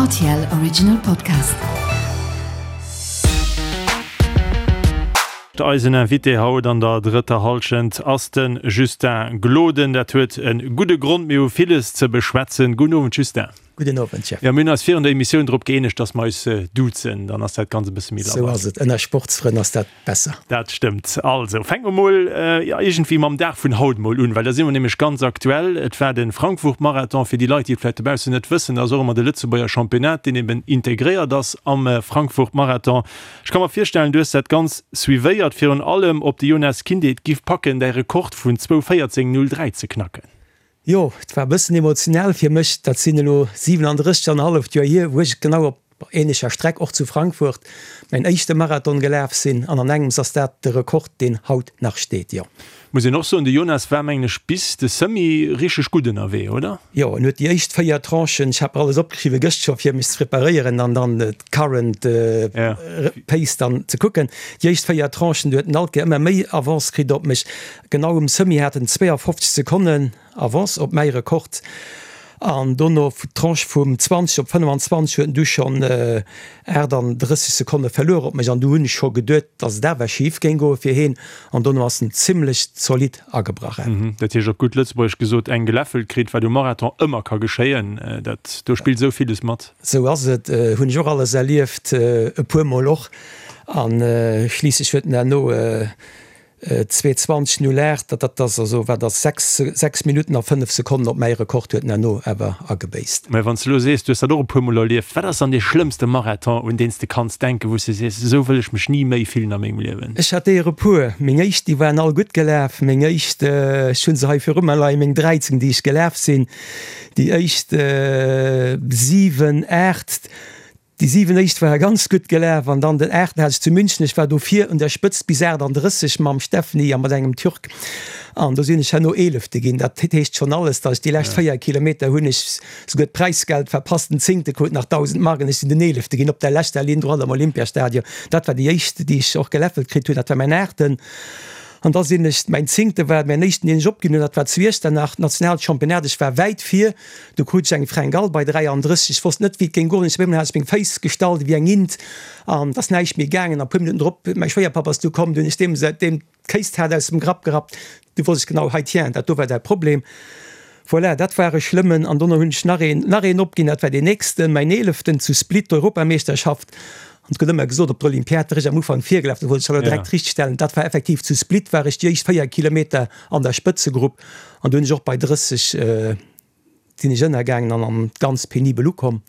Rtl Original Podcast. Eisen Invité haut an der drëtter Hallschent ass de Justin Gloden. Dat huet e gudde Grond, mir hu villes ze beschwätzen. Gudden Owend Justin. Gudden Owend Jeff. Jo, mir hunn eis virun der Emissioun drop gëeenegt, datt mer eis duzen, dann ass dat Ganzt e bësse méi labber. Sou ass et, ënner Sportsfrënn ass dat besser. Dat stëmmt. Also, fänke mer mol, jo, iergendwéi mam Dag vun haut mol un, well da si mer nämlech ganz aktuell. Et war de Frankfurt-Marathon. Fir déi Leit, déi et vläicht dobaussen net wëssen, dat ass och ëmmer de Lëtzebuerger Championnat, deen eben integréiert ass am Frankfurt-Marathon. Ech ka mer virstellen, du hues dat Ganzt suivéiert, virun allem ob de Yonas Kinde et giff packen, däi Rekord vun 2:14:03 ze knacken. Jo, et war e bëssen emotional fir mech. Dat sinn elo 37 an e halleft Joer hier, wou ech genau op änlecher Streck, och zu Frankfurt, mäin éischte Marathon gelaf sinn. An an engems ass dat de Rekord, deen haut nach steet, jo. Muss een och soen, de Jonas war, mengen ech, bis de Semi richteg gutt ënnerwee, oder? Jo, en huet déi éischt 4 Tranchen, ech hat mer alles opgeschriwwen gëscht scho fir mech ze preparéieren an dann d'current pace dann ze kucken. Déi éischt 4 Tranchen, do huet en alt Kéier ëmmer méi Avance kritt op mech. Genau um Semi hat en 52 Sekonnen Avance op mäi Rekord an dono d'Tranche vum 20 op 25 huet en du schonn 38 Sekonne verluer op mech an du hunn ech scho geduet, datt et awer schif géing goe fir heen an dono ass en zimmlech zolidd agebrach. Dat heescht op gutt Lëtzebuergesch gesot, eng geläffelt kritt, wat um Marathon ëmmer ka geschéien. Dat do spillt esou villes mat. Sou ass et, hunn ech och alles erlieft, e puer mol och a schliisslech huet en herno 2:20,08, dat dat ass also wat ass 6, 6 Minutten a 5 Sekonnen op mäi Rekord huet en herno awer agebéisst. Mä wann s de elo sees, du hues dat och e puer Mol erlieft, wat ass dann dee schlëmmste Marathon, un deen s de kanns denken, wou s de sees, esou wëll ech mech ni méi fillen a mengem Liewen? Ech hat der e puer. Meng éischt, déi waren all gutt gelaf. Meng éischt, ech hu se hei viru mer leien, meng 13, déi ech gelaf sinn, déi éischt 7, 8, Déi 7 éischt ware ganz gutt gelaf an dann den aachten hat ech zu München. Ech war do vir un der Spëtzt bis 38 mam Steffny a mat engem Türk an do sinn ech herno Eelefte ginn. Dat heescht schonn alles, datt ech déi lescht 4 Kilometer hunn ech souguer d'Präisgeld verpasst. Den Zéngte krut nach 1.000 Mark an ech sinn den Eelefte ginn op der leschter Linn droit am Olympiastadion. Dat war déi éischt, déi ech och geläffelt kritt hunn. Dat war mäin aachten. An da sinn ech, mäin Zéngte war mäin éischten, deen ech opginn hunn, dat war zu Iechternach, d'Nationalchampionnat. Ech war wäit vir. Du krut ech eng Fringale bei 33. Ech wosst net, wéi et géing goen. Ech op eemol hat ech meng Féiss gestallt ewéi eng Int an et ass näischt méi gaangen. A puer Minutten drop, mäi Schwéierpapp ass du komm, du hunn ech deem deem d'Kéistat aus dem Grapp gerappt. Du wosst ech genau, hei tiens, dat do war däi Problem. Voilà, dat war e schlëmmen. An dono hunn ech nach een, nach een opginn, dat war deen nächsten, mäin eeleften zu Split, d'Europameeschterschaft. An et gëtt ëmmer gesot, op der Olympiad wär ech am Ufank virgelaf, dat wollt ech elo direkt richtstellen, dat war effektiv zu Split war ech déi éischt 4 Kilometer an der Spëtzegrupp an do hunn ech och bei 30 sinn ech ënnergaangen an an ganz penibel ukomm.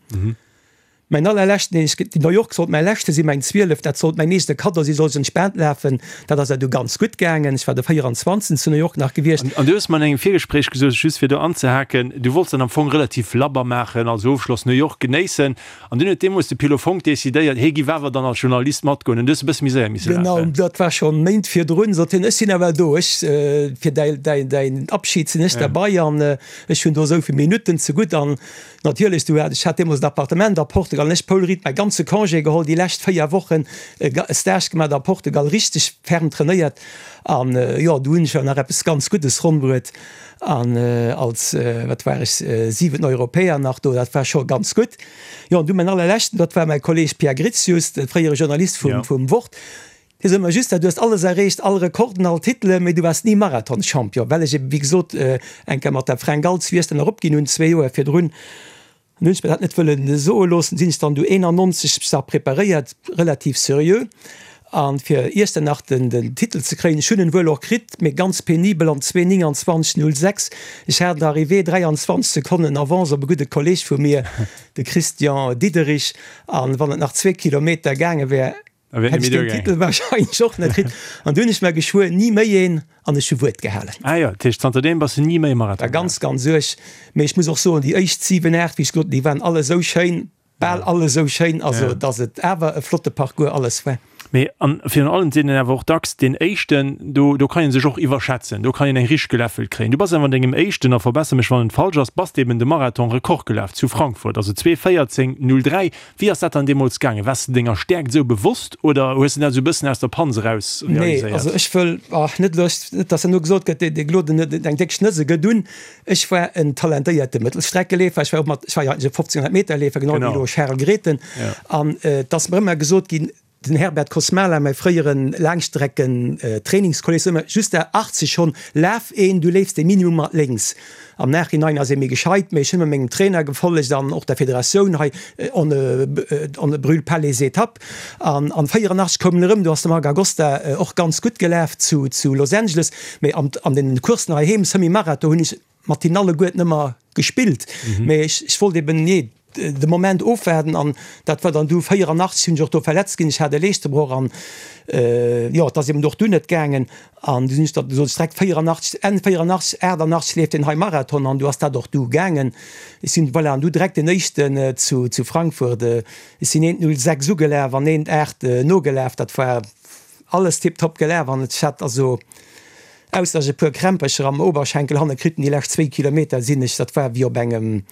Mäin allerleschten, deen ech, New York sollt mäi leschte sinn, mäin 12, dat sollt mäin nächste Kaddo sinn, sollt ech entspaant lafen, dat ass awer du ganz gutt gaangen. Ech war de 24. zu New York nach gewiescht. An du hues mer an engem Virgespréich gesot, just fir do anzehaken, du wollts dat am Fong relativ labber maachen, also Ofschloss New York genéissen. An dunn huet deemools de Pilo Fonck decidéiert, hie giff awer dann als Journalist matgoen. An du hues e bësse méi séier misse lafen. Genau, dat war schonn Méint virdrun, sot hien, ech sinn ewell do, ech, fir däi, däi, däin Abschied sinn ech derbei an ech hunn do esou vill Minutten zegutt. An natierlech, du hat, ech hat deemools en Appartement a Portugal an ech, Paul Ried, mäi ganze Congé geholl, déi lescht 4 Wochen e Stage gemaach a Portugal, richteg ferm trainéiert. An jo, du hunn ech jo nach eppes ganz Guddes ronn bruet. An als, wat war ech, siwenten Europäer nach do, dat war scho ganz gutt. Jo, an du mäin allerleschten, dat war mäi Kolleeg Pierre Gritius, de fréiere Journalist vum Wort, dee sot mer just, Du hues alles erreecht, all Rekorden, all Titelen, mee du waars ni Marathonschampion, well ech eben, wéi gesot, eng Kéier mat der Fränk Als Wiesden eropginn hunn, zwee Joer virdrun. An hunn ech mir dat net wëllen soe loossen, sinn ech dann du 91 mech nach preparéiert, relativ seriö, an fir Iechternach den den Titel ze kréien. Ech hunn en wuel och kritt, mee ganz penibel an 2,29,06. Ech hat an der Arrivée 23 Sekonnen Avance op e gudde Kolleg vu mir, de Christian Diederich, an wann et nach zwee Kilometer gaange wär, Hätt ech deen Titel wahrscheinlech och net kritt. An du hunn ech mer geschwuer, ni méi een, an ech hu Wuert gehalen. Ah jo, dat heescht zanterdeem bass de ni méi Marathon gelaf? Ganz, ganz uerg. Mee ech muss och soen, déi éischt 7, 8, wéi ech gesot hunn, déi waren all esou schéin, bal all esou schéin, also datt et awer e flotte Parcours alles war. Mee an virun allem sinn en awer och dacks deen éischten, do do kann een sech och iwwerschätzen, do kann een eng richteg geläffelt kréien. Du bass awer an dengem éischten, a verbesser mech wann et falsch ass, bass de eben de Marathon-Rekord gelaf zu Frankfurt, also 2:14:03. Wéi ass dat dann deemools gaangen? Waars de denger Stäerkt esou bewosst oder hues de dat esou e bëssen aus der Panz eraus Nee, realiséiert? also ech wëll, ach net elo, net dass herno gesot gëtt, dee Gloden huet eng déck Schnëss, e gëtt un. Ech war en talentéierte Mëttelstreckeleefer, ech war och mat, ech war jo eigentlech e 1500 Meter Leefer, genau wéi elo Charel Grethen. An et ass mer ëmmer gesot ginn, den Herbert Kosmala, mäi fréiere Laangstrecken-Trainingskolleg, sot ëmmer, Justin, 80 schonn, laf een, du leefs de Minimum mat lénks. Am Nachhinein ass ee méi gescheit, mee ech hunn ëmmer mengem Trainer gefollegt an och der Federatioun hei, on ne, on ne brûle pas les étapes. An an 84 koum en erëm, do ass de Marc Agosta och ganz gutt gelaf zu, zu Los Angeles. Mee an, an den Courssen heiheem, Semi-Marathon, hunn ech mat hinnen alleguerten ëmmer gespillt. Mee ech, ech wollt eben, nee, de Moment ofwaarden an dat war dann du 84 sinn ech och do verletzt ginn, ech hat e Leeschtebroch an, jo, et ass eben och dunn net gaangen an du sinn ech da sot ech direkt 84, Enn 84, 88 leeft deen hei Marathon an du ass dat och du gaangen. Ech sinn, voilà, an du direkt den éischten zu, zu Frankfurt, ech sinn eent 06 ugelaf an eent 8 nogelaf, dat war alles tiptop gelaf an ech hat also, ausser ech e puer Krämpercher am Oberschenkel hanne kritt hunn, déi lescht zwéi Kilometer sinn ech, dat war wéi op engem,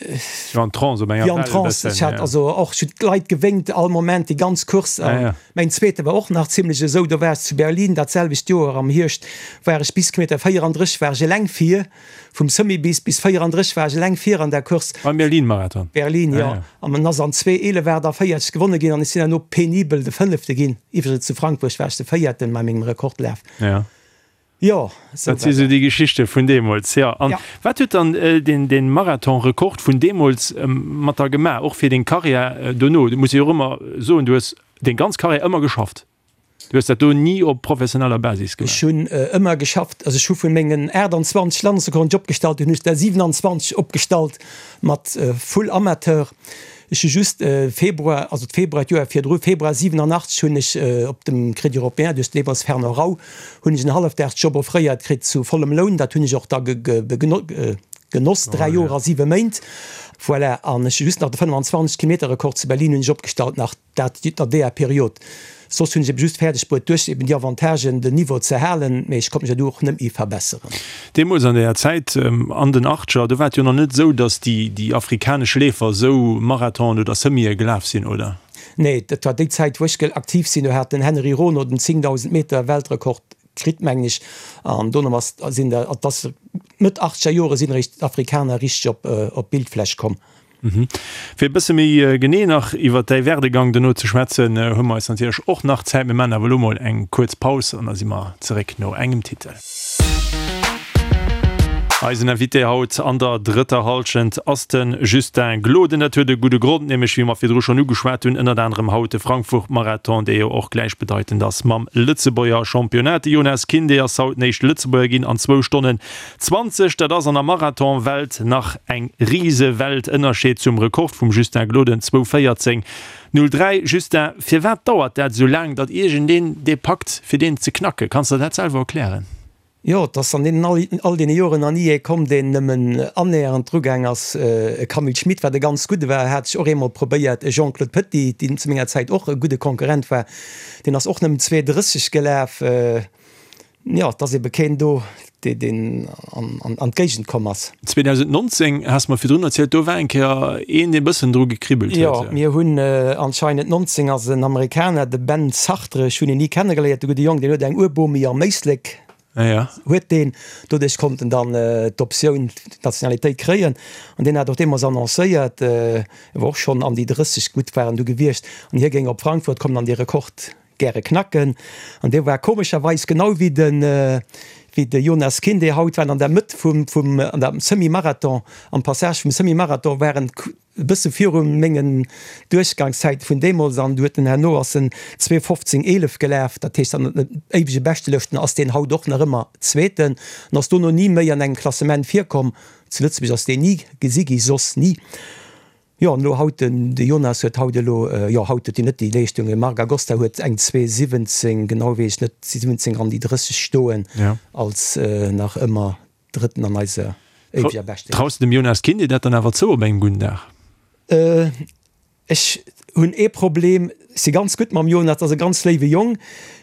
Wéi an Trance, op enger Wéi an Well e Trance. bëssen, Ech hat ja. also och, ech hunn d'Leit gewénkt all Moment, déi ganz Course. Ja, An ja. mäin zweete war och nach zimlech esou, do war ech zu Berlin dat selwecht Joer am Hierscht, war ech bis Kilometer 34 war ech eleng vir, vum Semi bis bis 34 war ech eleng vir an der Course. Beim Berlin-Marathon? Berlin, Ah, jo. ja. An en ass an 2:11:48 gewonne ginn an ech sinn herno penibel de Fënnefte ginn. Iwwregens zu Frankfurt war ech de Véierten bei mengem Rekordlaf. Ja. Jo, esou Dat si war sou dat. déi Geschichte vun deemools, jo. An Ja. wat huet dann deen, deen Marathon-Rekord vun deemools mat der gemaach, och fir deng Karriär dono? Du muss jo och ëmmer soen, du hues deng ganz Karriär ëmmer geschafft. Du hues dat do ni op professioneller Basis gemaach? Ech hunn ëmmer geschafft. Also ech hu vun mengen 28 Landesrekorden, déi ech opgestallt hunn, hunn ech der 27 opgestallt mat full Amateur. Ech hu just Februar, also d'Februar d'Joer virdru, Februar 87 hunn ech op dem Crédit Européen duerch den deemools Fernand Rau, hunn ech en Hallefdagsjob offréiert kritt zu vollem Loun. Dat hunn ech och da genoss, 3 Joer a 7 Méint. Voilà, an ech hu just nach de 25 Kilometer Rekord zu Berlin hunn ech opgestallt nach. Dat an deeër Period. Soss hunn ech eben just fäerdeg bruet, duerch eben déi Avantagen den Niveau ze halen, mee ech konnt mech jo du och net méi verbesseren. Deemools an deeër Zäit, an den Achtger, do war et jo nach net esou, datt déi, déi afrikanesch Leefer esou Marathonen oder Semië gelaf sinn, oder? Nee, dat war déi Zäit, wou ech aktiv sinn. Do hat den Henry Rono den 10.000 Meter Weltrekord kritt, mengen ech, an dono ass, sinn der, et ass Mëtt achtzeger Jore sinn eréischt d'Afrikaner richteg op, op d'Bildfläch komm. Fir e bësse méi genee nach iwwer däi Werdegang dono ze schwätzen, hu mer eis natierlech och nach Zäit. Mir maachen awer elo mol eng kuerz Paus an da si mer zeréck no engem Titel. Eisen Invité haut an der drëtter Hallschent ass de Justin Gloden. Dat huet e gudde Grond, nämlech wéi mer virdru schonn ugeschwat hunn, ënnert anerem haut de Frankfurt-Marathon, dee jo och gläichbedeitend ass mam Lëtzebuerger Championnat. De Yonas Kinde ass haut den éischte Lëtzebuerger ginn an zwou Stonnen 20, dat ass an der Marathon-Welt nach eng Risewelt. Ënnerscheed zum Rekord vum Justin Gloden, 2:14,03. Justin, firwat dauert dat esou laang, datt iergendeen dee packt, fir deen ze knacken? Kanns de der dat selwer erklären? Jo, et ass an deenen all deene Joren nach ni ee komm, deen nëmmen annähernd drugaang ass. E Camille Schmit, wat e ganz gudde war, hat sech och eemol probéiert. E Jean-Claude Petit, deen zu menger Zäit och e gudde Konkurrent war, deen ass och nëmmen 2,30 gelaf. Jo, et ass ebe keen do, deen an d'Géigend komm ass. 2019, has mer virdrun erzielt, do war eng Kéier een, dee bëssen dru gekribbelt huet. Jo, mir hunn anscheinend 19 ass en Amerikaner, de Ben Sartre, ech hunn en ni kennegeléiert, de gudde Jong, deen huet eng Urbomi am Éislek, huet deen. Doduerch konnt en dann d'Optioun, d'Nationalitéit kréien. An deen hat och deemools annoncéiert, e war och schonn an déi 30, gutt war en du gewiescht, an hie géing op Frankfurt kommen an dee Rekord gäre knacken an dee war komescherweis genau wéi de wéi de Jonas Kinde haut waren an der Mëtt vum vum an der Semi-Marathon am Passage vum Semi-Marathon waren e bësse viru mengen Duerchgangszäite vun deemools an du huet en herno ass en 2:15,11 gelaf, dat heescht an den éiwege Beschtelëschten ass deen haut och nach ëmmer Zweeten an ass dono ni méi an engem Klassement virkomm. Zu Lëtzebuerg ass deen ni gesi gi, soss ni. Jo, an elo haut, den de Jonas huet haut elo, jo haut huet hien net déi Leeschtung, de Marc Agosta huet eng 2,17, genau weess ech net, 17 an déi 30 stoen, als nach ëmmer Drëtten an eiser éiweger Beschtelëscht. Traus de dem Jonas Kindy dat dann awer zou op engem gudden Dag? Ech hunn ee Problem. si ganz gutt mam Jonas, dat ass e ganz léiwe Jong,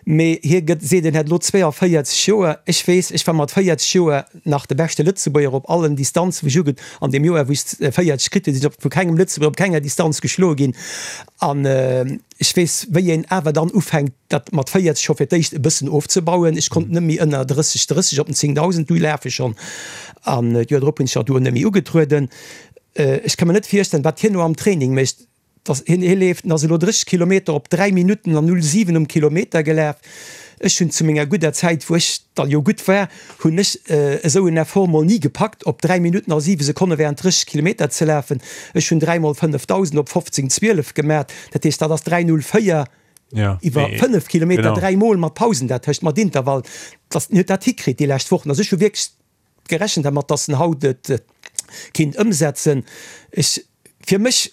mee hie gëtt, seet en hätt elo 42 Joer. Ech weess, ech war mat 40 Joer nach de beschte Lëtzebuerger op allen Distanzen, wou ech uge, an deem Joer wou ech 40 kritt hunn, sinn ech op vu kengem Lëtzebuerger op kenger Distanz geschloe ginn. An ech weess, wéi een awer dann ufänkt, dat mat 40 scho fir d'éischt e bëssen ofzebauen. Ech konnt net méi ënner 30, 30 op den 10.000 du lafe schonn. An d'Joer drop hunn ech och do net méi ugetrueden. Ech ka mer net virstellen, wat hien elo am Training mécht. Dass hien, hie leeft, en ass elo 30 Kilometer op 3 Minutten an 07 um Kilometer gelaf. Ech hunn zu menger gudder Zäit, wou ech da jo gutt war, hunn ech esou en Effort mol ni gepackt, op 3 Minutten a 7 Sekonne während 30 Kilometer ze lafen. Ech hunn 3 mol 5000 op 15, 12 gemat, dat heescht dat ass 3,04 iwwer 5 Kilometer, 3 mol mat Pausen dertëscht, mat Intervall. Dass hien huet dat hikritt déi lescht Wochen. Also ech hu wierklech gerechent dermat, dass en haut et kinnt ëmsetzen. Ech, fir mech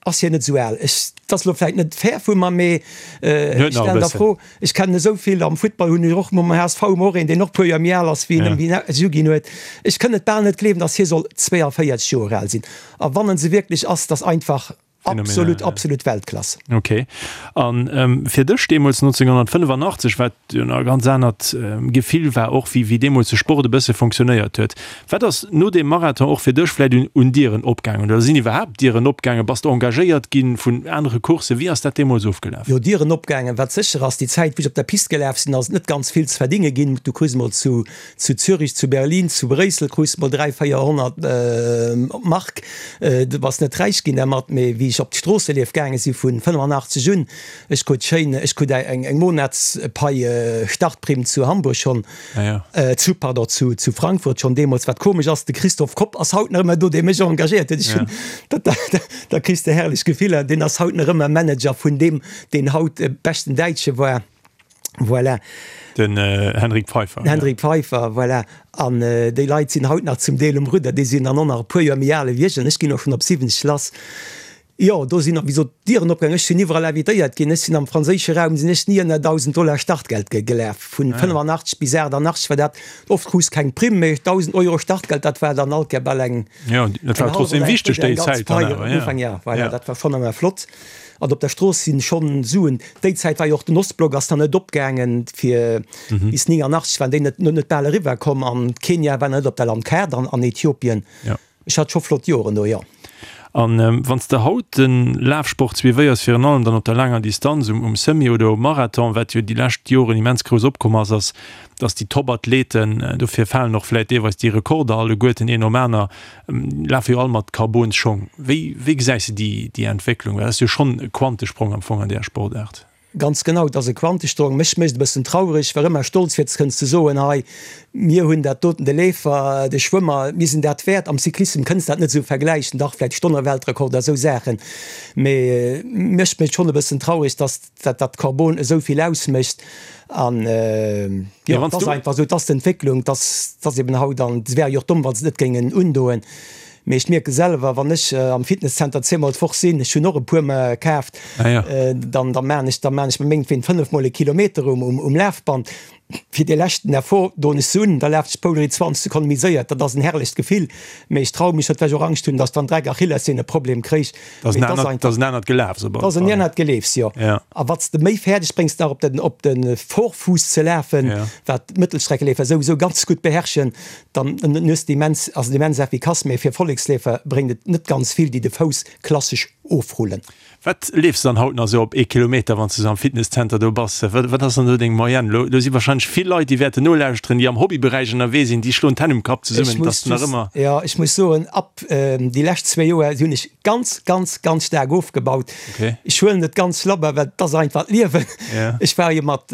ass hien net esou al. Ech, dat ass elo vläit net fair vu mer, mee ech stellen der Fro, ech kennen esou vill, am Futtball hunn ech och mam HSV hu mer och een, deen och e puer Joer méi al ass wéi en, wéi en es uginn huet. Ech kënn et bal net gleewen, dass hie soll 42 Joer al sinn. A wann en se wierklech ass, dass einfach Absolut, absolut Weltklass. Ok. An fir dech deemools 1985, wat jo nach e ganz anert Gefill war och, wéi wéi deemools de Sport e bësse fonctionnéiert huet. Wat ass no deem Marathon och fir dech vläicht un un Dieren opgaangen oder sinn iwwerhaapt Dieren opgaangen? Bass de engagéiert gi vun anere Courssen? Wéi ass dat deemools ofgelaf? Jo, Dieren opgaangen. Wat sécher ass, déi Zäit wou ech op der Pist gelaf sinn, ass et net ganz vill ze verdinge ginn. Du krus emol zu Zu Zürich, zu Berlin, zu Bréissel krus de mol 3, 400 Mark. Du bass net räich ginn dermat, mee wéi ech op d'Stroosselief gaange si vun 85 un, ech krut schéin, ech krut eng Monatspai Startprimm zu Hamburg schonn, zu, pardon, zu zu Frankfurt schonn deemools. Wat komesch ass, de Christoph Kopp ass haut nach ëmmer do, dee mech engagéiert huet. Ech hunn, dat, da kriss de herrlech Gefiller. Deen ass haut nach ëmmer Manager vun deem, deen haut beschten Däitsche war. Voilà. Den Hendrik Pfeiffer. Den Hendrik Pfeiffer, voilà. An déi Leit sinn haut nach zum Deel um Rudder. Déi sinn dann och nach e puer Joer méi al ewéi ech. An ech ginn och schonn op 70 lass. Jo, do sinn, wéi gesot, d'Dieren opgaangen. Ech sinn iwwerall invitéiert ginn. Ech sinn am franséische Raum, sinn ech ni ënner 1.000 Dollar Startgeld gelaf. Vun 85 bis 88 war dat, oft krus keng Primm, mee 1.000 Euro Startgeld, dat war dann alt gär bal eng, Jo, dat war trotzdem wichteg déi Zäit dann awer, jo. Jo, voilà, dat war schonn ëmmer flott. An op der Strooss sinn schonn Suen. Déi Zäit war jo och den Ostblock ass nach net opgaangen, fir bis 89 waren déi net net bal eriwwer komm an Kenia war nach net op der Landkaart an an Ethiopien. Ech hat scho flott Joren do, jo. An wann s de haut de Lafsport suivéiers, virun allem dann op der laanger Distanz, um um Semi oder um Marathon, wat jo déi lescht Joren immens grouss opkomm ass, ass, dass déi Top-Athleten, dofir falen och vläit deelweis déi Rekorder alleguerten een nom aner, Lafe jo all mat Carbonsschong. Wéi wéi gesäis de déi déi Entwécklung? Well dat ass jo schonn e Quantesprong am Fong an där Sportaart. Ganz genau, et ass e Quantesprong. Mech mécht e bëssen traureg, war ëmmer stolz fir kënnen ze soen, hei mir hunn dat doten, de Leefer, de Schwëmmer, mir sinn dat wäert. Am Cyclissem kënns dat net esou vergläichen, dach vläicht Stonneweltrekord a sou Saachen, mee mech mécht schonn e bëssen traureg, datt dat dat Carbon esou vill ausmécht an jo et ass einfach esou, et ass d'Entwécklung, et ass et ass eben haut an se wäre jo och domm wa se et net géingen undoen. Mee ech mierke selwer, wann ech am Fitnesszenter zweemol d'Woch sinn, ech hunn och e puer mer kaaft, dann da maan ech da maan ech mengtween fënnefmol e Kilometer um um Lafband. Fir dee leschten Effort doen ech se un, da lafen ech d'Poulerie 20 Sekonne méi séier. Dat ass en herrlecht Gefill, mee ech traue mech net, well ech och Angscht hunn, datt ech dann Dreck Achillessehn e Problem kréich. Dat ass en anert Gelafs op alle Fall. Dat ass en anert Geleefs, jo. A wat s de méi fäerdeg bréngs, nach op den, op de Vorfuuss ze lafen, wat d'Mëttelstreckeleefer souwisou ganz gutt beherrschen, dann hues de immens, ass et immens effikass. Mee fir Volleksleefer bréngt et net ganz vill, déi de Fouss klassesch ofrullen. Wat leefs de dann haut nach esou op ee Kilometer, wann s de esou am Fitnesszenter do bass? Wat ass dann do deng Moyenne? Lo do si wahrscheinlech vill Leit, déi wäerten nolauschteren, déi am Hobbyberäich ënnerwee sinn, déi schloen d'Hänn um Kapp zesummen, dass de nach ëmmer. Jo, ech muss soen, ab déi lescht zwee Joer hunn ech ganz, ganz, ganz staark ofgebaut. Ech huelen et ganz labber, well et ass einfach d'Liewen. Ech war jo mat.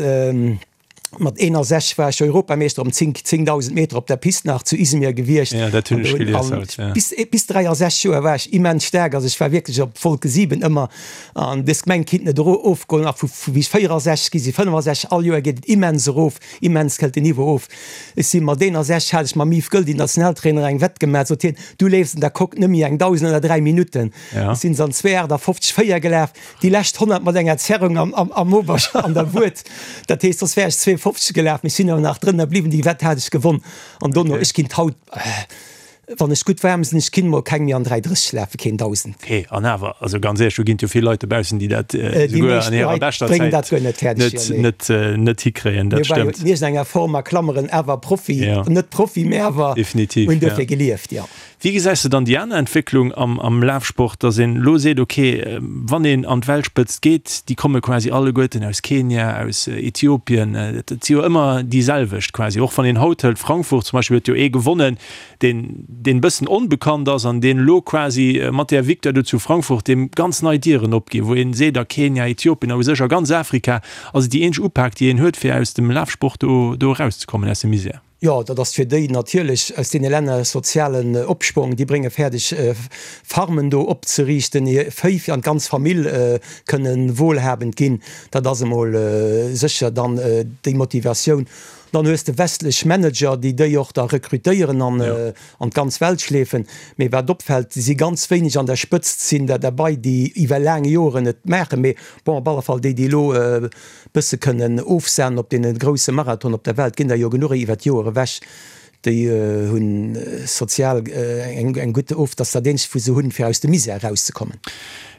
Mat 61 war ech Europameeschter um 10 10.000 Meter op der Pist nach zu Izmir gewiescht. Ja, dat hunn ech gelies haut, ja. Bis, bis 63 Joer war ech immens staark, also ech war wierklech op Wolke 7 ëmmer an dës Gemeng kinnt net ero ofgoen. A vu vu wéi ech 64 gi si 65, all Joer geet et immens erof, immens këllt den Niveau of. Ech si mat 61 hat ech mam Yves Goeldi, Nationaltrainer, eng Wett gemaach, sot hien, du leefs an der Coque net méi eng 1.000 ënner 3 Minutten. Ja. Ech sinn se an 2,58 4 gelaf. Déi lescht 100 mat enger Zerrung am, am, am Obersch an der Wued. Dat heescht, soss wär ech 52 gelaf, mee ech sinn awer nach drënner bliwwen. Déi Wett hat ech gewonn. An dono, ech ginn haut, äh, Wann ech gutt waarm sinn, ech ginn mol keng méi an 3,30 lafen, keen 1000. Hee, an awer, also ganz éierlech, do ginn et jo vill Leit dobaussen, déi dat esouguer an hirer beschter Zäit net, net, net hikréien, dat stëmmt. Mir waren jo an enger Form a Klammeren awer Profi, net Profi, mä awer hunn duerfir gelieft, jo. Wéi gesäis de dann déi aner Entwécklung am, am Lafsport, dass een elo seet, okay, wann een an d'Weltspëtzt geet, déi komme quasi alleguerten aus Kenia, aus Ethiopien, et si jo ëmmer déi selwecht quasi, och wann een haut hëlt, Frankfurt zum Beispill huet jo ee gewonnen, deen, deen e bëssen onbekannt ass an deen elo quasi mat där Victoire do zu Frankfurt deem ganz nei Dieren opginn, wou een seet, a Kenia, Ethiopien a u sech a ganz Afrika ass et déi eenzeg Upak, déi een huet, fir aus dem Lafsport do, do erauszekommen, aus dem Misär. Jo, dat ass fir déi natierlech aus deene Länner sozialen Opschwong. Déi brénge fäerdeg, Farmen do opzeriichten, hir Véi an d'ganz Famill kënne wohlhabend ginn. Dat ass emol sécher dann déi Motivatioun. Dann hues de westlech Manager, déi déi och da rekrutéieren an an d'ganz Welt schleefen. Mee wat opfält, si ganz wéineg an der Spëtzt sinn der derbei, déi iwwer laang Joren et maachen. Mee bon, op alle Fall déi, déi elo bësse kënnen ofsahnen op deene grousse Marathon op der Welt, ginn der jo genuch iwwer d'Joer ewech. Déi hunn sozial eng gutt of, dass dat eenzegt wou se hunn fir aus dem Misär erauszekommen.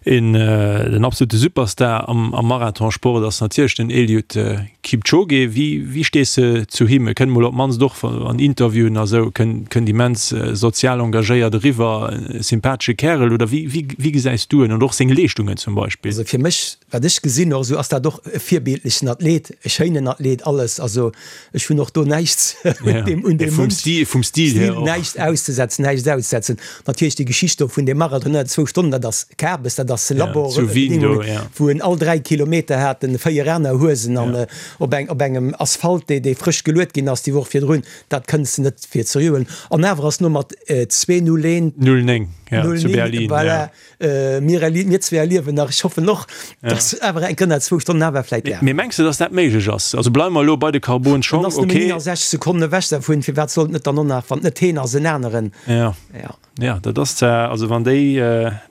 Een den absolute Superstar am Marathonsport ass natierlech den Eliud Kipchoge. Wéi wéi stees de zu him? E kënnt mol op d'mannst och an Interviewen a sou, kënnt immens sozial engagéiert eriwwer, e sympathesche Kärel oder wéi wéi wéi gesäis du en an och seng Leeschtungen zum Beispill? Also fir mech, wat ech gesinn och esou, ass dat och e virbildlechen Athlet, e schéinen Athlet, alles. Also Ech hunn och do näischt un deem, un deem Vum Stil, vum Stil hier och. Näischt auszesetzen, näischt auszesetzen. Natierlech déi Geschicht do vun deem Marathon ënner zwou Stonnen, dat ass Kabes, dat ass Labor, zu Wien do, ja. wou en all 3 Kilometer hat en 4 aner Huesen an op eng, op engem Asphalt, dee, dee frësch geluet ginn ass déi Woch virdrun, dat kënns de net fir ze huelen. An awer ass no mat 2:01. 09, ja, zu Berlin, ja. Voilà. Mir erlie, mir zwee erliewen nach, ech hoffen och, dass awer eng Kënner zwou Stonnen awer vläit lafen. Mee mengs de, dass dat méiglech ass? Also bleiwe mer elo bei de Carbon-Schong, En ass nëmmen okay. 69 Sekonnen ewech dervun, firwat sollt net dann och nach, wann et net heen ass, en aneren? Ja, Ja. ja, dat ass zwar, also wann déi,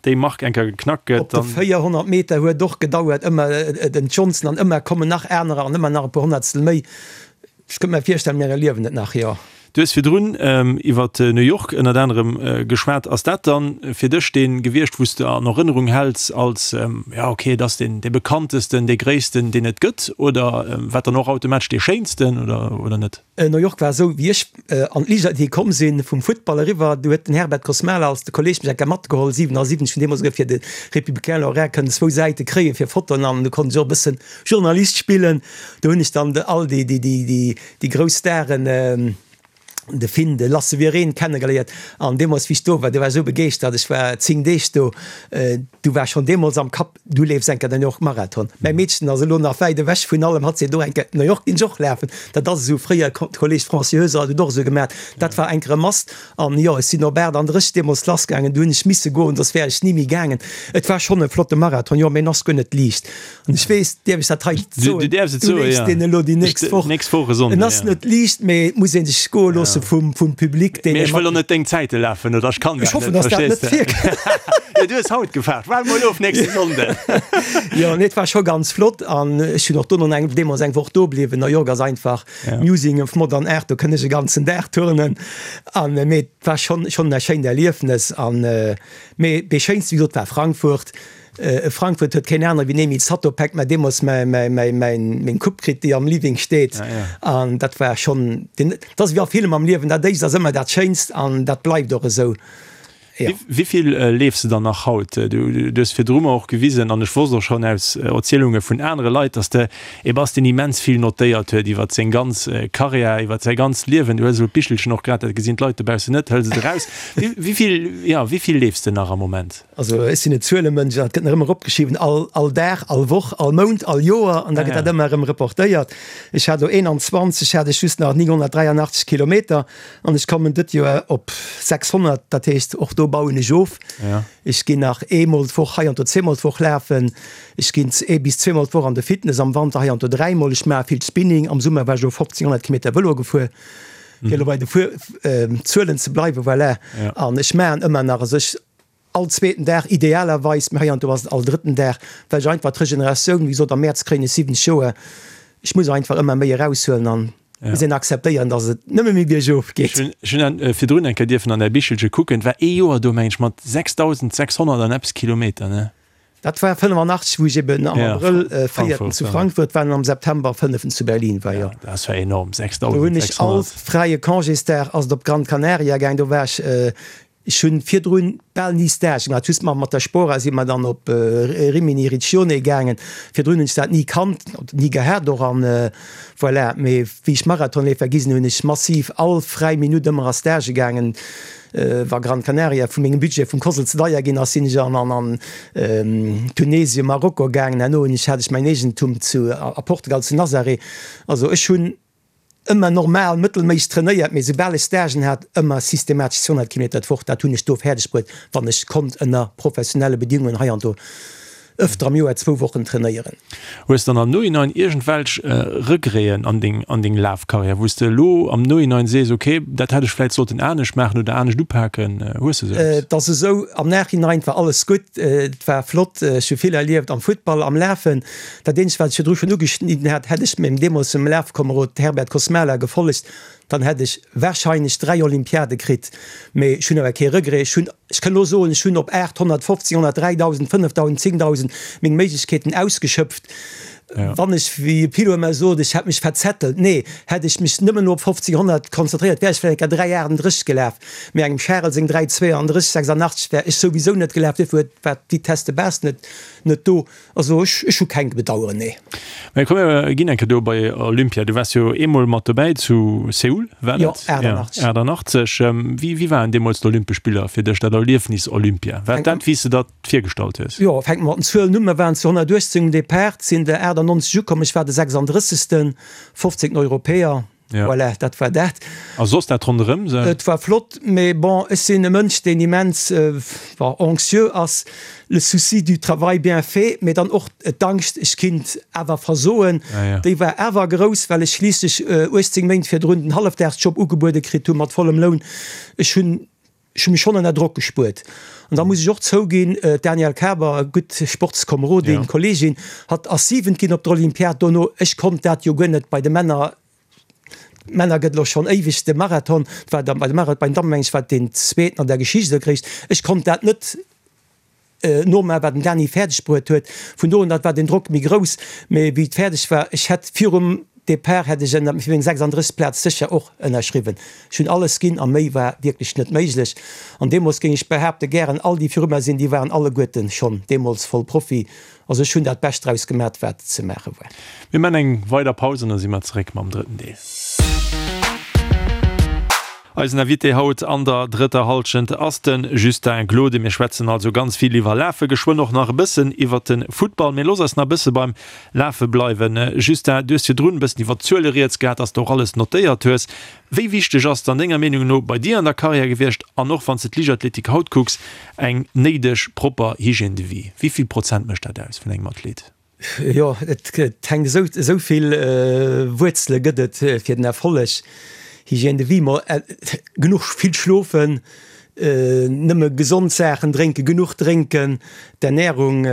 déi Mark eng Kéier geknackt gëtt, Op de dann. 400 Meter huet och gedauert, ëmmer den Johnson an ëmmer kommen nach anerer an ëmmer nach e puer Honnertstel méi. Ech kënnt mer virstellen, mir erliewen et nach, jo. Du hues virdrun iwwer New York ënnert anerem geschwat. Ass dat dann fir dech dee gewiescht, wou s de an Erënnerung häls als, jo okay, et ass deen dee bekanntesten, dee gréissten, deen et gëtt, oder wat dann och automatesch dee schéinsten, oder, oder net? New York war esou, wéi ech an d'Liichtathletik komm sinn, vum Futtball eriwwer, du huet den Herbert Kosmala als de Kolleg mech eng Kéier matgeholl, 77, hunn deemools esouguer fir de Républicain Lorrain kënnen zwou Säite kréien fir Fotoen an du konnt ech och e bëssen Journalist spillen. Do hunn ech dann all déi, déi, déi, déi grouss Staren, de Finn, de Lasse Wirén kennegeléiert. An deemools, wéi ech do war, do war ech esou begeeschtert, ech war 10 Deeg do, du war schonn deemools am Kapp, du leefs eng Kéier den New York Marathon. Mäi Meedchen ass elo nach wäit ewech vun allem, hatt seet och eng Kéier, New York ginn ech och lafen. Dat ass esou, fréier, Kolleeg Franci Heuser hat et och esou gemaat, dat war eng Kéier e Must. An jo, ech sinn op 38 deemools lassgaangen, du hunn ech misse goen, soss wär ech ni méi gaangen. Et war schonn e flotte Marathon, jo, mee en ass guer net liicht. An ech weess, dierf ech dat hei soen? Du däerfs et soen, jo. Du leefs deen elo déi nächst Woch. Nächst Woch e Sonnden, jo. En ass net liicht, mee et muss ee sech goe loosse vum, vum Public, deen. Mee ech wëll och net deng Zäite lafen, oder ech kann dat net. Ech hoffen, dass dat net virkënnt. Jo, du hues haut gefaart. Waarde mol of nächste Sonnden. Jo, nee, et war scho ganz flott an ech hunn och dono eng, deemools eng Woch do bliwwen. New York ass einfach Museum of Modern Art, do kënnt ech e ganzen Dag turnen. An, mee et war schonn, schonn e schéint Erliefnes an, mee dee schéinste, wéi gesot, war Frankfurt. Frankfurt huet keen anere wéi den Emil Zatopek mä deemools meng Coupe kritt, déi am Living steet. An dat war schonn, dat ass wéi a villem am Liewen, dat éischt ass ëmmer dat Schéinst an dat bleift och esou. Jo. Wéi vill leefs de dann nach haut? Du hues virdru mer och gewisen, an ech wosst och schonn aus Erzielunge vun anere Leit, datt de ee bass, deen immens vill notéiert huet iwwer seng ganz Karriär, iwwer säi ganzt Liewen. Du hues elo d'Bichelchen och grad, dat gesinn d'Leit dobaussen net, hëls et eraus. Wéi vill, jo, wéi vill leefs de nach am Moment? Also ech sinn e Zuelemënsch an et gëtt nach ëmmer opgeschriwwen, all, all Dag, all Woch, all Mount, all Joer an da gëtt dat ëmmer erëm reportéiert. Ech hat elo 21, hat ech just nach 983 Kilometer an ech kommen dëtt Joer op 600, dat heescht och do bauen ech of. Ech ginn nach eemol d'Woch, heiansdo zweemol d'Woch lafen. Ech ginn ee bis zweemol d'Woch an de Fitness, am Wanter heiansdo dräimol. Ech maache vill Spinning, am Summer war ech elo 1500 Kilometer Vëlo gefuer. Fir elo bei de Zuelen ze bleiwen, voilà. An ech maachen ëmmer nach, also ech all zweeten Dag idealerweis, mee heiansdo ass et all drëtten Dag, well ech einfach d'Regeneratioun, wéi gesot am Mäerz kréien ech 70 Joer, ech muss einfach ëmmer méi eraushuelen an. Muss een akzeptéieren, dass et nëmme méi biergof geet. Ech hunn virdrun eng Kéier dierfen an däi Bichelche kucken. Et war ee Joer do, meng ech, mat 6.600 an eppes Kilometer, ne? Dat war 85, wou ech eben am Abrëll véierten zu Frankfurt war an am September fënneften zu Berlin war, jo. Dat war enorm, 6.600. Do hunn ech all fräie Congésdag ass et op Gran Canaria gaang. Do war ech Ech hunn virdrun bal ni Stage gemaach, just mal mat der Spora si mer dann op Rimini Riccione gaangen. Virdrun hunn ech dat ni kannt, ni gehat och an voilà. Mee wéi ech Marathonleefer gi sinn, hunn ech massiv all fräi Minutt ëmmer a Stage gaangen. Wa Gran Canaria vu mengem Budget vum Cosl ze deier ginn ass, sinn ech an an Tunesien, Marokko gaangen. Herno hunn ech hat ech mäin Eegentum zu a Portugal zu Nazaré. Also ech hunn Ëmmer normal, mëttelméisseg trainéiert, mee soubal ech Stagen hat, ëmmer systematesch 200 Kilometer d'Woch. Dat hunn ech do fäerdeg bruet, wann ech konnt ënner professionelle Bedingungen heiansdo ëfter am Joer zwou Wochen trainéieren. Hues dann am Nohinein iergendwelch Regreten an deng an deng Lafkarriär, wou s de elo am Nohinein sees, ok, dat hätt ech vläit sollten anescht maachen oder anescht upaken? Hues de sou eppes? Et ass esou, am Nachhinein war alles gutt, et war flott, ech hu vill erlieft am Futtball, am Lafen. Dat eenzegt, wat ech virdru schonn ugeschnidden hat, hätt ech mengem deemolsem Lafkomerod Herbert Kosmala gefollegt, dann hätt ech warscheinlech 3 Olympiade kritt. Mee ech hunn awer kee Regret. Ech hunn, ech kënn elo soen, ech hunn op 850, 100, 3.000, 5.000, 10.000 meng Méiglechkeeten ausgeschöpft. Wann ech, wéi e Pilot ëmmer sot, ech hätt mech verzettelt, nee, hätt ech mech nëmmen elo op 50, 100 konzentréiert, wär ech vläicht eng Kéier 3,38 gelaf. Mee engem Charel seng 3,32, 86 wär ech souwisou net gelaf, duerfir huet, war d'Vitesse de base net, net do. Also ech, ech hu keng Bedaueren, nee. Mä komm mir ginn eng Kéier do bei Olympia. Du waars jo eemol mat dobäi zu Seoul, war dat? Jo, 88. 88. Wéi, wéi waren deemools d'Olympesch Spiller fir dech, dat Erliefnis Olympia? War dat, wéi s de dat virgestallt hues? Jo, fänke mer mat den Zuelen un. Mer waren zu 118 um Depart, sinn der 98 ukomm. Ech war de 36. 15. Europäer. Ja. Voilà, dat war dat. A soss dat ronderëm se? Et war flott, mee bon, ech sinn e Mënsch, deen immens bon, anxieux ass, le souci du travail bien fait, mee dann och d'Angscht, ech kinnt awer versoen, Ja, ja. déi war awer grouss, well ech schliisslech 18 Méint virdrun den Hallefdagsjob ugebuede kritt hu mat vollem Loun. Ech hunn Ech hu mech schonn ënner Drock gespuert. An da muss ech och zouginn, d'Danielle Kaber, gutt Sportskomerodin, Kolleegin, hatt ass Siwent ginn op der Olympiad dono. Ech konnt dat jo guer net bei de Männer. D'Männer gëtt elo schonn éiweg de Marathon. Et war da bei de Marathon, bei den Dammen meng ech war et deen zweeten an der Geschicht oder Gréisst. Ech konnt dat net nomaachen, wat den Dany fäerdeg bruet huet. Vun do un, dat war den Drock méi grouss. Mee wéi et fäerdeg war, ech hätt virum Depart hätt ech ënner fir meng 36. Plaz sécher och ënnerschriwwen. Ech hunn alles ginn a méi war wierklech net méiglech. An deemools géing ech behaapten, gären all déi viru mer sinn, déi waren alleguerten schonn deemools voll Profi. Also ech hunn dat Bescht draus gemat, wat ze maache war. Mir man eng weider Paus an da si mer zeréck mam drëtten Deel. Eisen Invité haut an der drëtter Hallschent ass de Justin Glode. Mir schwätzen also ganz vill iwwer Lafe, geschwënn och nach e bëssen iwwer de Futtball. Mee looss eis nach e bësse beim Lafe bleiwen. Justin, du hues virdrun e bëssen iwwer d'Zuele rieds gehat, dass de och alles notéiert hues. Wéi wichteg ass et an denger Meenung no bei dir an der Karriär gewiescht, an och wann s de d'Liichtathletik haut kucks, eng néideg propper Hygiène de vie? Wéi vill Prozent mécht dat aus vun engem Athlet? Jo, et hänkt esou, esou vill Wuerzele gëtt et fir den Erfolleg. Hygiène de vie, ma genuch vill schlofen, nëmme gesond Saachen drénken, genuch drénken, d'Ernährung,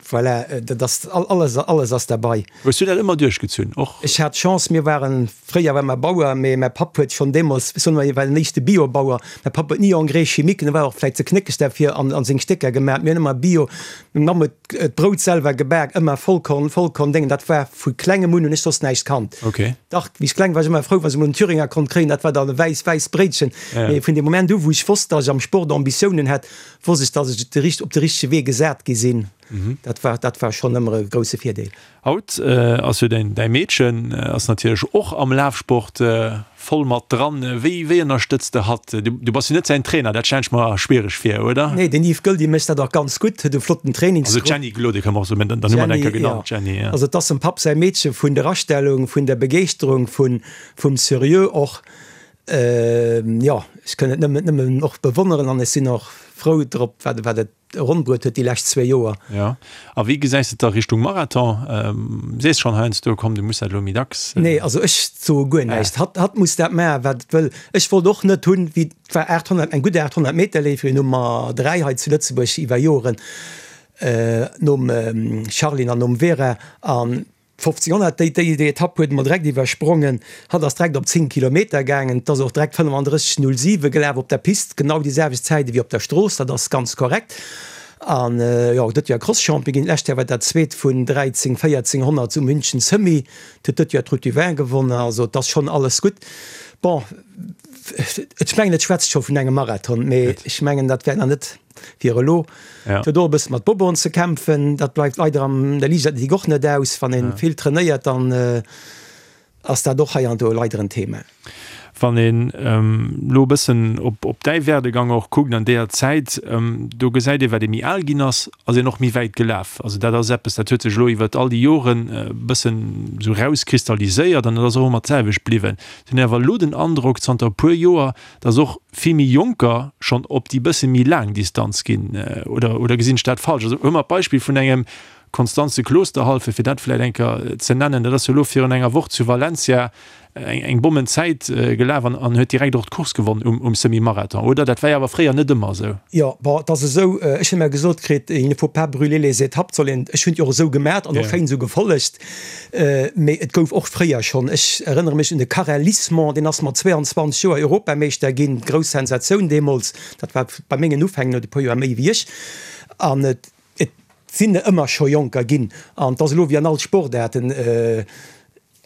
voilà, dat ass alles, alles ass derbei. Hues du dat ëmmer duerchgezunn och? Ech hat d'Chance, mir waren, fréier war mer Bauer, mee mäi Papp huet schonn deemools, ech soen ëmmer, hie war den éischte Bio-Bauer, mäi Papp huet ni Engrais chimique, en war och vläicht ze knéckeg derfir, an an seng Stécker gemaach, mir hunn ëmmer Bio, meng Mamm huet d'Brout selwer gebak, ëmmer Vollkorn, Vollkorn-Déngen, dat war vu klengem un, hunn ech soss näischt kannt. Okay. Dach, wéi ech kleng war, war ech ëmmer frou, wann ech emol en Thüringer konnt kréien, dat war dann e wäiss, wäiss Bréitchen. Ja. Mee vun deem Moment u wou ech wosst, datt ech am Sport Ambitiounen hätt, wosst ech, datt ech de richt, op de richtege Wee gesat gi sinn. Dat war, dat war schonn ëmmer e grousse Virdeel. Haut ass jo däin, däi Meedchen ass natierlech och am Lafsport voll mat dran. Wéi, wéi ënnerstëtz de hatt? Du, du bass jo net säin Trainer, dat stellen ech mer schwiereg vir, oder? Nee, den Yves Goeldi mécht dat och ganz gutt, huet e flotten Trainingsgrupp. Also d'Jenny Glode kënne mer och soen, mä dann hu mer et eng Kéier genannt, d'Jenny, ja. Also et ass dem Papp säi Meedche vun der Astellung, vun der Begeeschterung, vun, vum Serieux och. Jo, ech kënn et nëmmen, nëmmen och bewonneren an ech sinn och frou drop, wat, wat et ronn bruet huet déi lescht zwéi Joer. Jo, a wéi gesäis de et da Richtung Marathon? Sees schonn heiansdo, komm du muss dat elo méi dacks. Nee, also ech soe guer näischt. Hatt, hatt muss dat maachen, wat et wëll. Ech wollt och net hunn, wéi, et war 800, eng gutt 800 Meter Leeferin, Nummer 3 hei zu Lëtzebuerg iwwer Joren, nom Charline an nom Vera, an. 1500, déi, déi, déi Etapp huet emol direkt iwwersprongen. Hatt ass direkt op 10 Kilometer gaangen. Et ass och direkt 35,07 gelaf op der Pist, genau déi selwecht Zäit ewéi op der Strooss, dat ass ganz korrekt. An jo, et huet jo e Cross-Champion ginn, d'lescht Joer war dat zweet vun 13 1400 zu München Semi. Et huet dëtt Joer d'Route du Vin gewonnen, also et ass schonn alles gutt. Bon, ech mengen et schwätzt scho vun engem Marathon, mee ech mengen dat wär nach net fir elo. Et huet och e bësse mat Boboen ze kämpfen, dat bleift leider an der Liichtathletik och net aus. Wann ee vill trainéiert, dann ass dat och hei an do leider en Thema. Wann een elo e bëssen op däi Werdegang och kuckt an deeër Zäit, do gesäit ee wat ee méi al ginn ass, ass een och méi wäit gelaf. Also dat ass eppes, dat huet sech elo iwwert all déi Joren e bëssen esou rauskristalliséiert an dat ass och ëmmer d'selwecht bliwwen. Ech hunn awer elo den Androck zanter e puer Joer, datt och vill méi Jonker schonn op déi bësse méi laang Distanz ginn. Oder, oder gesinn ech dat falsch? Also huele mer d'Beispill vun engem Konstanze Klosterhalfe, fir dat vläicht eng Kéier ze nennen, dat ass jo elo virun enger Woch zu Valencia eng Bommenzäit gelaf an huet direkt och d'Course gewonn um Semi-Marathon, oder? Dat war jo awer fréier net ëmmer esou. Jo, bon, et ass esou, ech hunn ëmmer gesot kritt, il ne faut pas brûler les étapes, soll een, ech hunn et jo och esou gemat an och schéin esou gefollegt, mee et gouf och fréier schonn, ech erënnere mech un de Karel Lismont, deen ass mat 22 Joer Europameeschter ginn, grouss Sensatioun deemools, dat war bei mengen Ufäng, en huet e puer Joer méi wéi ech, an et Et sinn der ëmmer scho Jonker ginn an et ass elo wéi an all Sportaarten,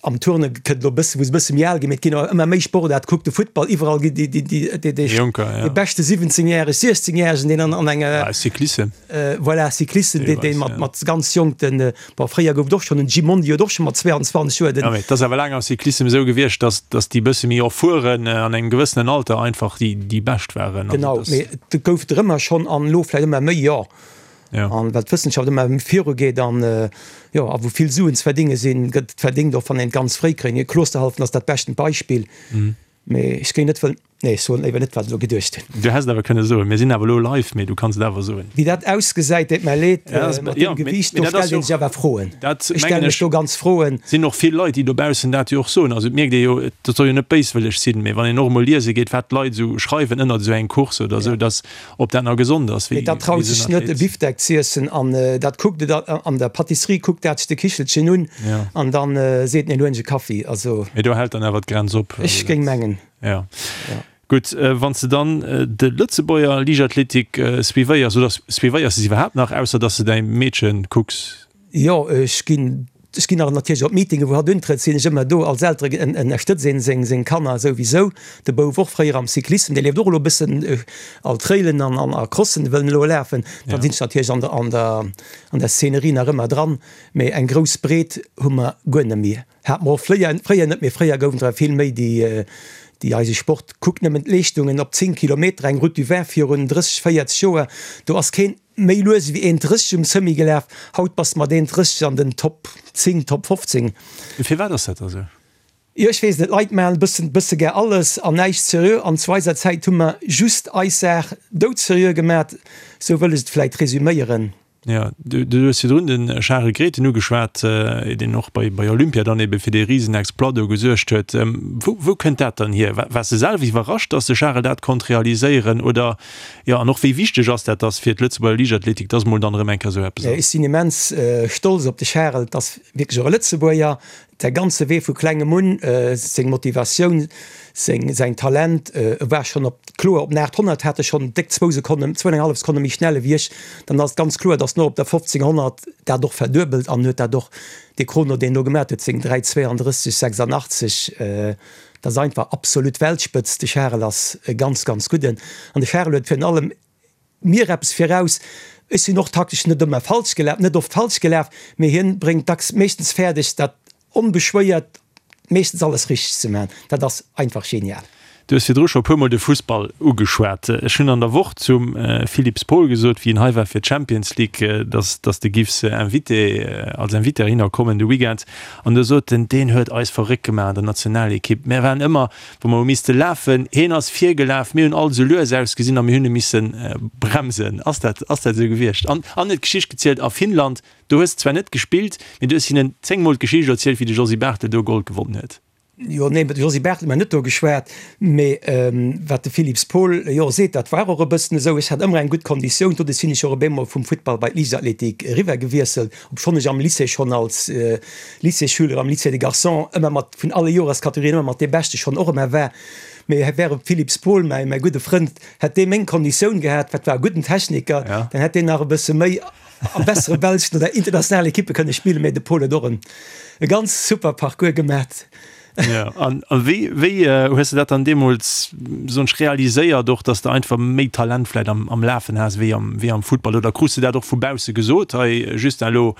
am Turne kënnt elo e bësse wou se e bësse méi al ginn, mee et ginn awer ëmmer méi Sportaarte, kuck de Futtball, iwwerall gi déi déi déi Jonker, dee beschte 17 järeg, 16 järegen, deen an an enger Cyclissem, voilà, Cyclissem, deen deen mat mat ganz jonk den, bon fréier gouf et och schonn, den Gimondi huet och scho mat 22 Joer den. Jo, mee et ass awer laang am Cyclissem esou gewiescht, datt datt déi bësse méi erfueren an engem gewëssenen Alter einfach déi déi bescht waren. Genau, mee et gouf der ëmmer schonn an elo vläicht ëmmer méi, jo. Ja. An well d'Wëssenschaft ëmmer méi viru geet an jo, a wou vill Suen ze verdinge sinn, gëtt et verdingt, och wann een et ganz fréi kréien. Klosterhalfen ass dat beschten Beispill. Mee ech géing net wëllen, nee, ech soen léiwer net, wat ech elo geduecht hunn. Du häss et awer kënne soen. Mir sinn awer elo live, mee du kanns et awer soen. Wéi dat ausgesäit, deet mer leed, mat deem Gewiicht, do stellt ee sech awer Froen. Dat Ech stelle mech do ganz Froen. Sinn och vill Leit, déi dobaussen dat jo och soen. Also et mierkt ee jo, dat soll jo net béiswëlleg sinn, mee wann een och emol liese geet, wat d'Leit esou schreiwen ënnert esou eng Course oder esou, dass Ob dat nach gesond ass, wéi Dat traut sech net e Bifdeck z'iessen an dat kuckt et an der Patisserie, kuckt dat sech de Kichelchen un an dann seet en, elo hunn ech e Kaffi. Also. Mee do hält dann awer d'Grenz op. Ech géing mengen. Jo. Gutt, wann s de dann de Lëtzebuerger Liichtathletik suivéiers, oder suivéiers de se iwwerhaapt nach, ausser datt s de däi Meedche kucks? Jo, ech ginn, ech ginn nach natierlech op Meetinge wou hatt untrëtt, sinn ech ëmmer do. Als Eltere ënnerstëtzt een seng, seng Kanner souwisou. De Bouf och fréier am Cyclissem, dee leeft och elo e bëssen all Trailen an, an a Crossen wëll en elo lafen. Da sinn ech natierlech an der, an der, an der Szenerie nach ëmmer dran. Mee eng grouss Breet hu mer guer net méi. Hat mer och fléier, fréier net, mee fréier goufen der vill méi déi, déi eise Sport, kuckt nëmmen d'Leeschtungen op 10 Kilometer, eng Route du Vin virun 30, 40 Joer, do ass keen, Méi lues ewéi 1,30 um Semi gelaf, haut bass de mat 1,30 an den Top 10, Top 15. Firwat ass dat da sou? Jo, ech weess net, d'Leit maachen e bëssen, bësse gär alles an näischt seriö an zu eiser Zäit hu mer just eis Saach doudseriö gemat, sou wëll ech et vläit resüméieren. Jo, du hues virdrun de Charel Grethen ugeschwat, deen och bei bei Olympia dann ebe fir dee Risenexploit do gesuergt huet. Wou, wou kënnt dat dann hier? Waars de selwer iwwerrascht, datt de Charel dat konnt realiséieren oder Jo, an och wéi wichteg ass dat dass fir d'Lëtzebuerger Liichtathletik, dass mol dann erëm eng Kéier esou eppes ass? Ech sinn immens stolz op de Charel, et ass wierklech och e Lëtzebuerger, säi ganze Wee vu klengem un, seng Motivatioun, seng, säin Talent, e war schonn op, kloer op den 800 hat e schonn déck zwou Sekonnen, zwou an eng hallef Sekonne méi schnell ewéi ech, dann ass et ganz kloer, dass en och op der 1500 dat och verduebelt an huet dat och, dee Chrono deen en do gemaat huet, seng 3,32, 86, Dat ass einfach absolut Weltspëtzt. De Charel ass e ganz, ganz gudden. An de Charel huet virun allem mir eppes viraus, Ech sinn och taktesch net ëmmer falsch gelaf, net oft falsch gelaf, mee hien bréngt dacks meeschtens fäerdeg, dat onbeschwéiert meeschtens alles richteg ze maachen. Dat ass einfach genial. Du hues virdru scho e puermol de Fussball ugeschwat. Ech hunn an der Woch zum Philippe Spohl gesot, wéi en hei war fir d'Champions League, dass dass de giffs Invité, als Invité heihinner kommen de Weekend. An do sot en, deen huet eis verréckt gemaach an der Nationalekipp. Mär waren ëmmer, wou mer hu misste lafen, hien ass virgelaf, mir hunn all esou lues ausgesinn a mir hunn e misse bremsen. Ass dat, ass dat esou gewiescht? An an huet d'Geschicht gezielt a Finnland, do hues de zwar net gespillt, mee du hues hinnen zéngmol d'Geschicht erzielt, wéi de Josy Barthel do Gold gewonnen huet. Jo, nee, mat Josy Barthel hu mer net do geschwat, mee wat de Philips Paul jo seet, dat war och e bëssen esou. Ech hat ëmmer eng gutt Konditioun, doduerch sinn ech och op eemol vum Futtball bei d'Liichtathletik eriwwer gewiesselt, obschonn ech am Lycée schonn als Lycéesschüler am Lycée des Garçons ëmmer mat vun alle Joreskategorien ëmmer mat dee Beschte schonn och ëmmer war. Mee wär et Philips Paul, mäi mäi gudde Frënd, hätt dee meng Konditioun gehat, wat war e gudden Techniker, dann hätt deen nach e bësse méi a bessere belschen oder internationalen Ekippe kënne spillen, mee de Paul huet och en e ganz super Parcours gemat. Ja, an, an wéi, wéi äh, hues du dat dann deemools soen ech realiséiert och, dass de einfach méi Talent vläit am, am Lafen has wéi am, wéi am Futtball oder krus de dat och vu bausse gesot, hei Justin, elo,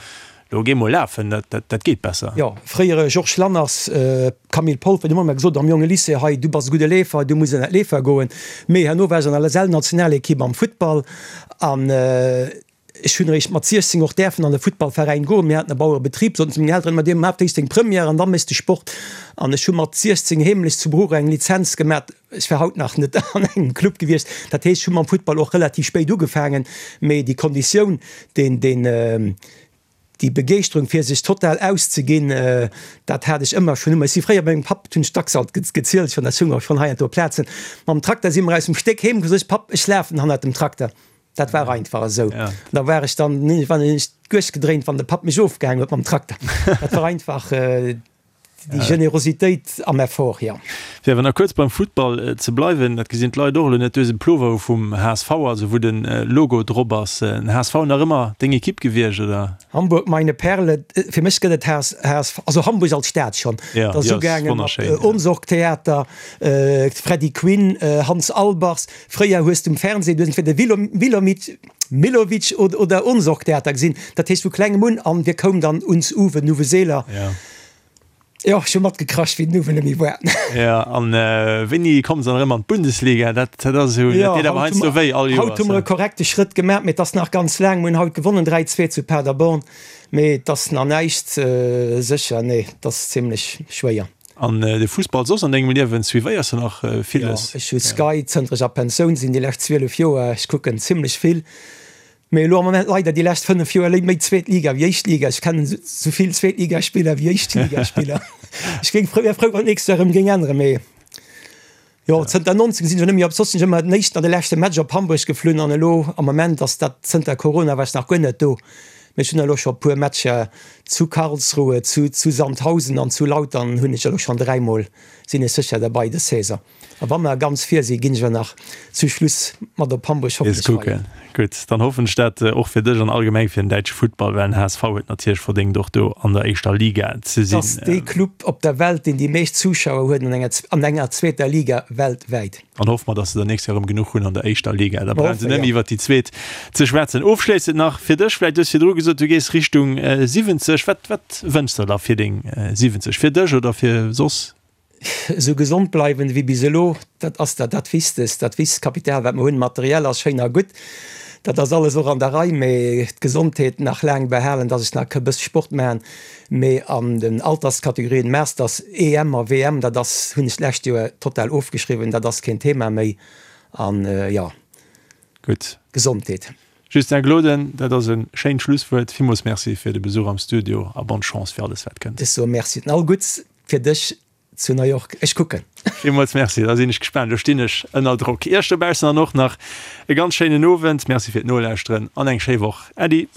elo géi mol lafen, dat, dat, dat geet besser? Jo, fréiere Georges Lanners, äh, Camille Polfer, déi hunn ëmmer gesot am jonge Lycée, hei du bass e gudde Leefer, du muss an dat Leefer goen. Mee herno war ech an der LSL-Nationalekipp am Futtball an, äh, Ech hunn eréischt mat 16 och däerfen an e Futtballveräin goen. Mir haten e Bauerebetrib, soten zu mengen Elteren ëmmer, Dir maacht éischt deng Première an da méchs de Sport. An ech hu mat 16 heemlech zu Bruch eng Lizenz gemat. Ech war haut nach net an engem Club gewiescht. Dat heescht, ech hu mam Futtball och relativ spéit ugefaangen. Mee déi Konditioun, deen, deen, déi Begeeschterung fir sech total auszeginn, dat hat ech ëmmer schonn. Ech si fréier bei mengem Papp, dat hunn ech dacks alt gezielt schonn, dat soung och schonn heiansdo op Plazen, mam Trakter si mer aus dem Stéck heem, gesot, Papp, ech lafen hannert dem Trakter. Dat war einfach esou. Ja. Da war ech dann wann ech duerch gedréint, wann de Papp mech ofgehaang huet mam Trakter. Dat war einfach äh, déi Generositéit am Effort, ja. Fir awer nach kuerz beim Futtball äh, ze bleiwen, dat gesinn d'Leit och elo net, du hues e Plover vum HSV, also wou den äh, Logo drop ass. Äh, den HSV nach ëmmer deng Ekipp gewiescht, oder? Hamburg, meine Perle, fir mech gëtt et HS, HSV, also Hamburg als Stad schonn. Ja, Dat ass déi ass ugaangen mat wonnerschéin, ja. Ohnsorg-Theater, äh, Freddy Quinn, äh, Hans Albers, Fréier hues de um Fernseh, du hues entweder Wilomit, Milovic oder Ohnsorg-Theater gesinn. Dat heescht vu klengem un an wir koum dann uns Uwe, den Uwe Seeler. Ja. Jo, ech hu matgekracht, wéi den Uwe net méi war. Ja, an wéini komme se dann erëm an d'Bundesliga? Dat, dat ass esou, dat deet awer heiansdo wéi all Joers. Haut hu mer e korrekte Schrëtt gemaach, mee et ass nach ganz laang. Mir hunn haut gewonnen, 3, 2 zu Paderborn, mee et ass nach näischt sécher. Nee, et ass zimlech schwéier. An de Fussball soss an dengem Liewen, suivéiers de nach villes? Jo, ech hu Sky zënter ech a Pensioun sinn, déi lescht 12 Joer. Ech kucken zimlech vill, mee elo am Moment leider déi lescht 5 Joer méi zweet Liga wéi éischt Liga. Ech kennen esou vill Zweetligaspiller wéi Éischtligaspiller. Ech géing frou, wär frou, wann d'nächst Joer erëm géing änneren, mee jo, zënter 19 sinn ech net méi op, soss sinn ech ëmmer den éischten an de leschte Match op Hamburg geflunn an elo am Moment ass dat, zënter Corona war ech nach guer net do. Mee ech hunn elo scho puer Matcher zu Karlsruhe, zu zu Sandhausen an zu Lautern hunn ech elo schonn dräimol, sinn ech sécher derbei dës Saison. A wa mer ganz vir sinn, ginn ech och nach zu Schluss mat op Hamburg Nees hoffentlech kucken. feieren. Gutt, dann hoffen ech dat och fir dech an allgemeng fir den däitsche Futtball, well den HSV huet natierlech verdéngt och do an der éischter Liga ze Et ass sinn. dee Club op der Welt, deen déi meescht Zuschauer huet an enger an enger zweeter Liga weltwäit. An hoffe mer, dass se der nächst Joer erëm genuch hunn an der éischter Liga. Da brauche se net méi iwwert déi zweet ze schwätzen. Ofschléissend nach fir dech, vläicht, du hues virdru gesot, du gees Richtung 70. Wat, wat wënschs de der fir deng 70? Fir dech oder fir soss? Esou gesond bleiwen ewéi bis elo, dat ass dat dat Wichtegst. Dat wichtegst Kapital, wat mer hunn. Materiell ass schéin a gutt, dat ass alles och an der Rei, mee d'Gesondheet nach laang behalen, dass ech nach e bësse Sport maachen. Mee an den Alterskategorien Masters, EM a WM, dat ass, hunn ech d'lescht Joer total ofgeschriwwen, dat ass keen Thema méi. An jo, Gutt. Gesondheet. Justin Gloden, dat ass e schéint Schlusswuert. Villmools Merci fir de Besuch am Studio a bonne Chance fir alles wat kënnt. Ech soe Merci an all Gutts fir dech zu New York. Ech kucken. Villmools Merci, da sinn ech gespaant. Elo stinn ech ënner Drock. Iech dobaussen dann och nach e ganz schéinen Owend. Merci fir d'Nolauschteren an eng schéi Woch. Äddi.